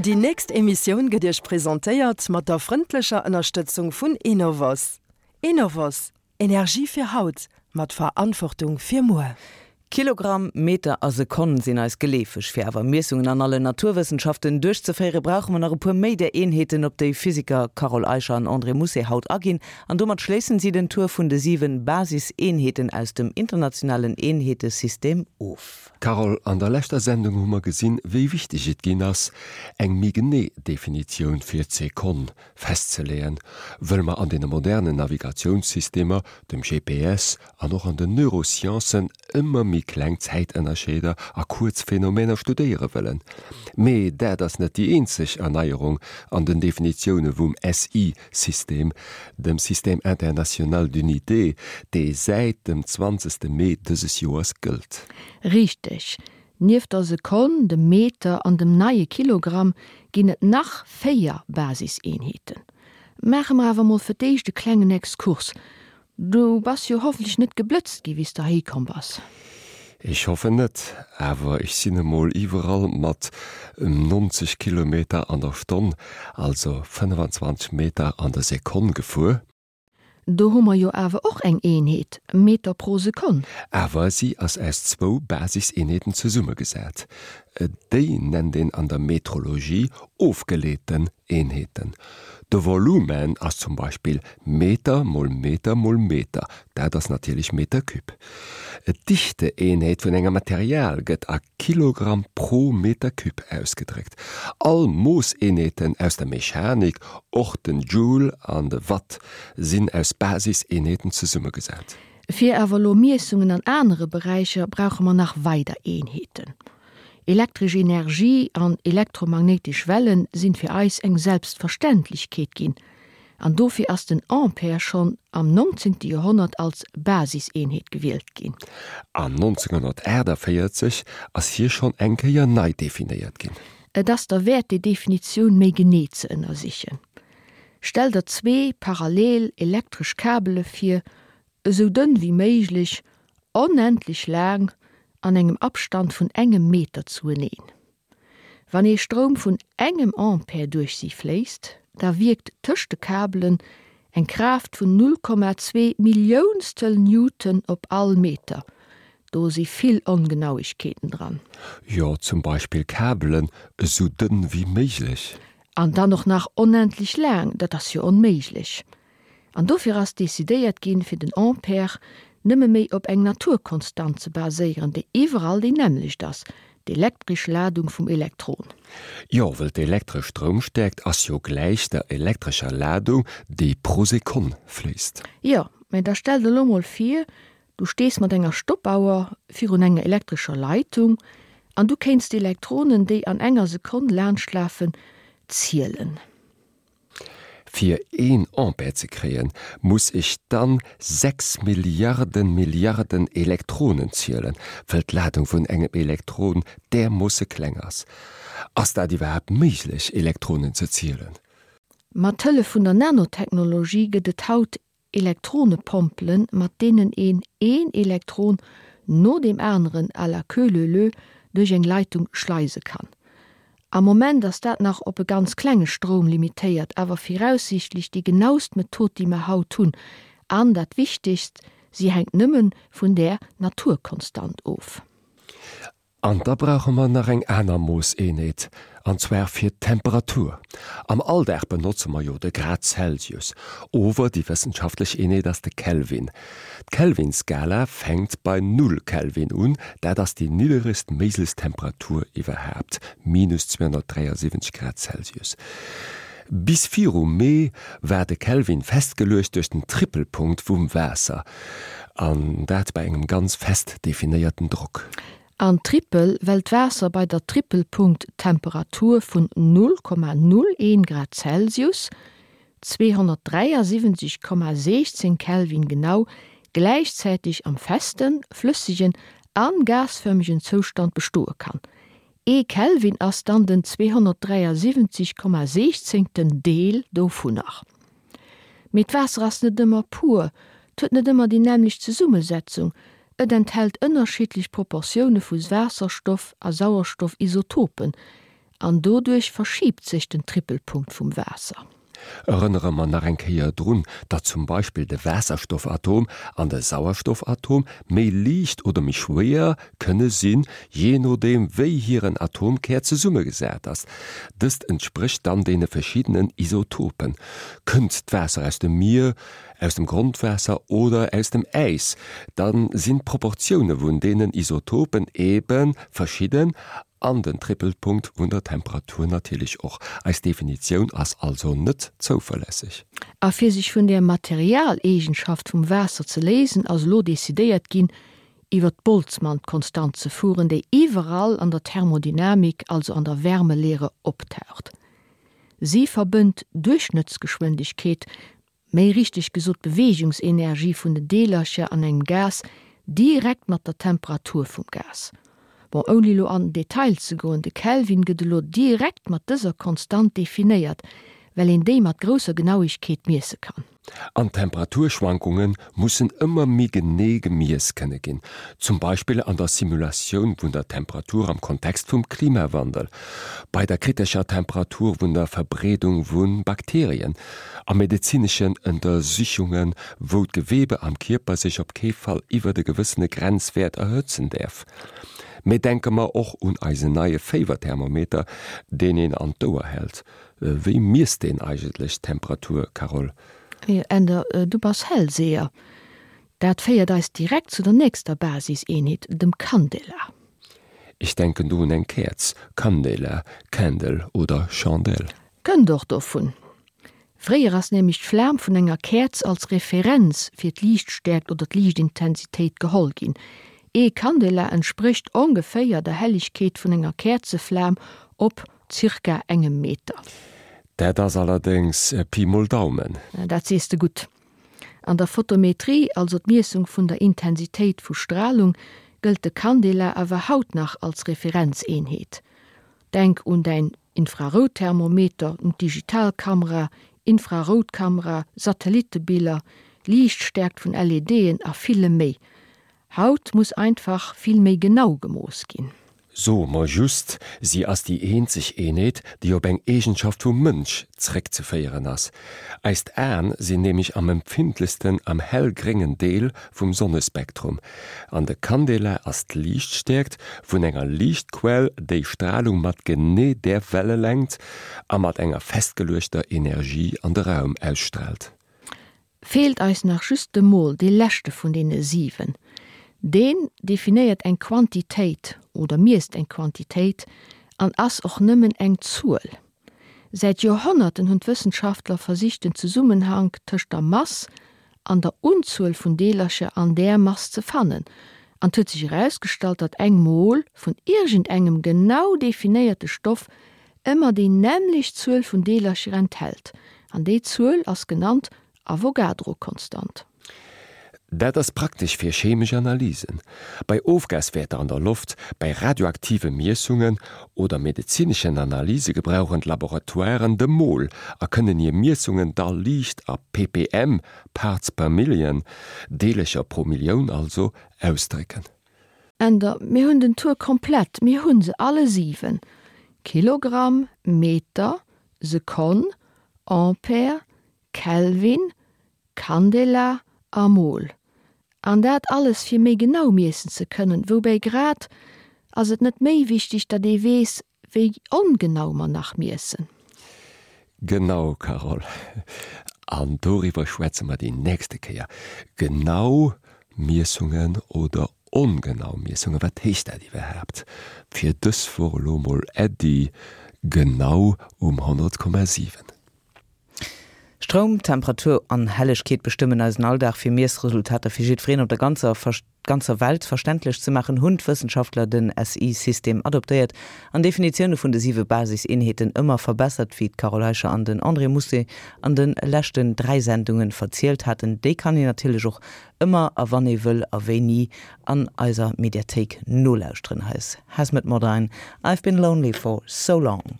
Déi nächst Emissioun gëtt Iech presentéiert mat der frëndlecher Ënnerstëtzung vun Enovos. Enovos, Energie fir haut, mat Verantwortung fir muer. Kilogramm, Meter a Sekonn sinn eis geleefeg. Fir awer Miessungen an allen Naturwëssenschaften duerchzeféiere brauche mer nach e puer méi där Eenheeten, op déi Physiker Carole Eicher an André Mousset haut aginn. An domat schléissen si den Tour vun de 7 Basiseenheeten aus dem internationalen Eenheetesystem of. Carole, an der leschter Sendung hu mer gesinn, wéi wichteg et ginn ass, eng méi genee Definitioun fir d'Sekonn festzeleeën, wëll mer an deene modernen Navigatiounssystemer, dem GPS an och an den Neurosciencen ëmmer méi kleng Zäitënnerscheeder a kuerz Phänomener studéiere wëllen. Mee dat ass net déi eenzeg Erneierung an den Definitioune vum SI-System, dem Système international d'unités, dee säit dem 20. Mee dëses Joers gëllt. Richteg. Nieft der Sekonn, dem Meter an dem neie Kilogramm ginn et nach 4 Basiseenheeten. Maache mer awer mol fir d'éischt e klengen Exkurs. Du bass jo hoffentlech net geblëtzt gi wéi s de heihi komm bass. Ech hoffen net, awer ech sinn emol iwwerall mat 90 Kilometer an der Stonn, also 25 Meter an der Sekonn gefuer. Do hu mer jo awer och eng Eenheet, Meter pro Sekonn. Awer si ass aus zwou Basiseenheeten zesummegesat. Déi nennt een an der Metrologie ofgeleeten Eenheeten. De Volumen ass zum Beispill Meter mol Meter mol Meter, dat ass natierlech Meter Cube. D'Dichteeenheet vun engem Material gëtt a Kilogramm pro Meter Cube ausgedréckt. All Moosseenheeten aus der Mechanik, och den Joule an de Watt, sinn aus Basiseenheeten zesummegesat. Fir awer elo Miessungen an anere Beräicher brauche mer nach weider Eenheeten. Elektresch Energie an elektromagnéitesch Wellen sinn fir eis eng Selbstverständlechkeet ginn, an dofir ass den Ampere schonn am 19. Joerhonnert als Basiseenheet gewielt ginn. An 1948 ass hie schonn eng Kéier nei definéiert ginn. Et ass derwäert déi Definitioun méi genee ze ënnersichen. Stell der zwee parallel elektresch Kabele vir, esou dënn wéi méiglech, onendlech laang, an engem Abstand vun engem Meter zueneen. Wann ee Stroum vun engem Ampere duerch si fléisst, da wierkt tëscht de Kabelen eng Kraaft vun 0,2 Milliounstel Newton op all Meter. Do si vill Ongenauegkeeten dran. Jo, zum Beispill Kabelen esou dënn wéi méiglech. An dann och nach onendlech laang, dat ass jo onméiglech. An dofir ass decidéiert ginn, fir den Ampere nëmme méi op eng Naturkonstant ze baséieren, déi iwwerall déi nämmlecht ass, d'elektresch Ladung vum Elektron. Jo, wëll d'elektresch Stroumstäerkt ass jo gläich der elektrescher Ladung, déi pro Sekonn fléisst. Jo, mä da stell der elo mol vir, du stees mat enger Stoppauer virun enger elektrescher Leitung an du kéints d'Elektronen, déi an enger Sekonn laanschtlafen, zielen. Fir een Ampere ze kréien, muss ech dann 6 Milliarden Milliarden Elektronen zielen, wëll d'Ladung vun engem Elektron därmoosse kleng ass. Ass dat iwwerhaapt méiglech, Elektronen ze zielen? Mat Hëllef vun der Nanotechnologie gëtt et haut Elektronepompelen, mat deenen een een Elektron no deem aneren à la queue leu leu duerch eng Leitung schleise kann. Am Moment ass dat nach op e ganz klenge Stroum limitéiert, awer viraussiichtlech déi genaust Method, déi mer haut hunn. An dat Wichtegst, si hänkt nëmme vun där Naturkonstant of. An da brauche mer nach eng aner Moosseenheet, an zwar fir d'Temperatur. Am Alldag benotze mer jo de Grad Celsius, ower déi wëssenschaftlech Eenheet ass de Kelvin. D'Kelvin-Skala fänkt bei null Kelvin un, dat ass déi nidderegst méiglechst Temperatur iwwerhaapt, minus 273 Grad Celsius. Bis viru Mee war de Kelvin festgeluecht duerch den Trippelpunkt vum Waasser, an dat bei engem ganz fest definéierten Drock. An Trippel, well d'Waasser bei der Trippelpunkttemperatur vun 0,01 Grad Celsius, 273,16 Kelvin genau, gläichzäiteg am festen, flëssegen a gasfërmegen Zoustand bestoe kann. Ee Kelvin ass dann den 273,16. Deel dovunner. Mee d'Waasser ass net ëmmer pur, 't huet net ëmmer déi nämmlecht Zesummesetzung, et enthält ënnerschiddlech Proportioune vu Waasserstoff a Sauerstoffisotopen. An doduerch verschiibt sech den Trippelpunkt vum Waasser. Erënnere mer nach eng Kéier drun, datt zum Beispill de Waasserstoffatom an de Sauerstoffatom méi liicht oder méi schwéier kënne sinn, jee nodeem wéi hiren Atomkär zesummegesat ass. Dëst entsprécht dann deene verschiddenen Isotopen. Kënnt d'Waasser aus dem Mier, aus dem Grondwaasser oder aus dem Äis, da sinn d'Proportioune vun deenen Isotopen ebe verschidden An den Trippelpunkt vun der Temperatur natierlech och. Eis Definitioun ass also net zouverlässeg. A fir sech vun där Materialeegenschaft vum Waasser ze léisen, ass elo decidéiert ginn, iwwer d'Boltzmann-Konstant ze fueren, déi iwwerall an der Thermodynamik, also an der Wärmelehre, optaucht. Si verbënnt d'Duerchschnëttsgeschwindegkeet méi richteg gesot d'Beweegungsenergie vun den Deelercher an engem Gas direkt mat der Temperatur vum Gas. Bon, ouni elo an den Detail ze goen, de Kelvin gëtt elo direkt mat dëser Konstant definéiert, well een déi mat grousser Genauigkeet miesse kann. An d'Temperaturschwankunge mussen ëmmer méi genee gemiess kënne ginn, zum Beispill an der Simulatioun vun der Temperatur am Kontext vum Klimawandel, bei der kritescher Temperatur vun der Verbreedung vu Bakterien, a medezineschen Ëntersichungen, wou d'Geweebe am Kierper sech op kee Fall iwwert e gewëssene Grenzwäert erhëtzen däerf. Mee denke mer och un eisen neie Féiwerthermometer, deen een an d'Ouer hält. Wéi miesst deen eigentlech d'Temperatur, Carole? Änder, du bass Hellseher. Dat féiert eis direkt zu der nächster Basiseenheet, dem Candela. Ech denken do un eng Käerz, Candela, Candle oder Chandelle. Kënnt och dovun. Fréier ass nämlech d'Flam vun enger Käerz als Referenz fir d'Liichtstäerkt oder d'Liichtintensitéit geholl ginn. Ee Candela entsprécht ongeféier der Hellegkeet vun enger Käerzeflam op zirka engem Meter. Dat ass allerdéngs Pi mol Daumen. Dat sees de gutt. An der Photometrie, also d'Miessung vun der Intensitéit vu Stralung, gëllt de Candela awer haut nach als Referenzeenheet. Denk un däin Infrarouthermometer, un d'Digitalkamera, Infraroutkamera, Satellitebiller, Liichtstäerkt vun LEDen a villem méi. Haut muss einfach vill méi genau gemooss ginn. Soe mer just, si ass déi eenzeg Eenheet, déi op eng Eegenschaft vum Mënsch zréckzeféieren ass. Eist Aen sinn nämlech am empfindlechsten am hellgréngen Deel vum Sonnespektrum. An de Candela ass d'Liichtstäerkt vun enger Liichtquell, déi Stralung mat genee där Wellelängt a mat enger festgeluechter Energie an de Raum ausstraalt. Feelt eis nach just de Mol, dee leschte vun deene 7. Deen definéiert eng Quantitéit oder miesst eng Quantitéit an ass och nëmmen eng Zuel. Säit Joerhonnerten hunn d'Wëssenschaftler versicht den Zesummenhank tëscht der Mass an der Unzuel vun Deelercher an där Mass ze fannen an 't huet sech erausgestallt, datt eng Mol vun iergendengem genau definéierte Stoff ëmmer déi nämmlecht Zuel vun Deelercher enthält, an déi Zuel ass genannt Avogadro-Konstant. Dat ass praktesch fir chemesch Analysen, bei Ofgaswäerter an der Loft, bei radioaktive Miessungen oder medezineschen Analyse gebrauchen d'Laboratoiren de Mol a kënnen hir Miessungen da liicht a ppm, Parts per Million, Deelercher pro Millioun also, ausdrécken. Änder, Mir hunn den Tour komplett, mir hu se alle 7, Kilogramm, Meter, Sekonn, Ampere, Kelvin, Candela a Mol. An dat alles fir méi genau miessen ze kënnen. Woubäi grad ass et net méi wichteg, datt ee weess, Wéi ongenau mer nach miessen. Genau, Carole. An doriwwer schwätze mer déi nächste Kéier. Genau Miessungen oder ongenau Miessungen, wat heescht dat iwwerhaapt? Fir dës Woch elo mol Äddi, genau um 100,7. Stroum, Temperatur an Hellegkeet bestëmmen eisen Alldag. Fir Miessresultater fir jiddwereen op der ganzer ganzer Welt verständlech ze maachen, hunn d'Wëssenschaftler den SI-System adoptéiert an d'Definitioune vun de siwe Basiseenheeten ëmmer verbessert, wéi d'Carole Eicher an den André Mousset an de leschten 3 Sendunge verzielt haten. Déi kann een natierlech och ëmmer a wann ee wëll a wéini an eiser Mediathéik nolauschteren. Hei ass Hazmet Modine, I've been lonely for so long.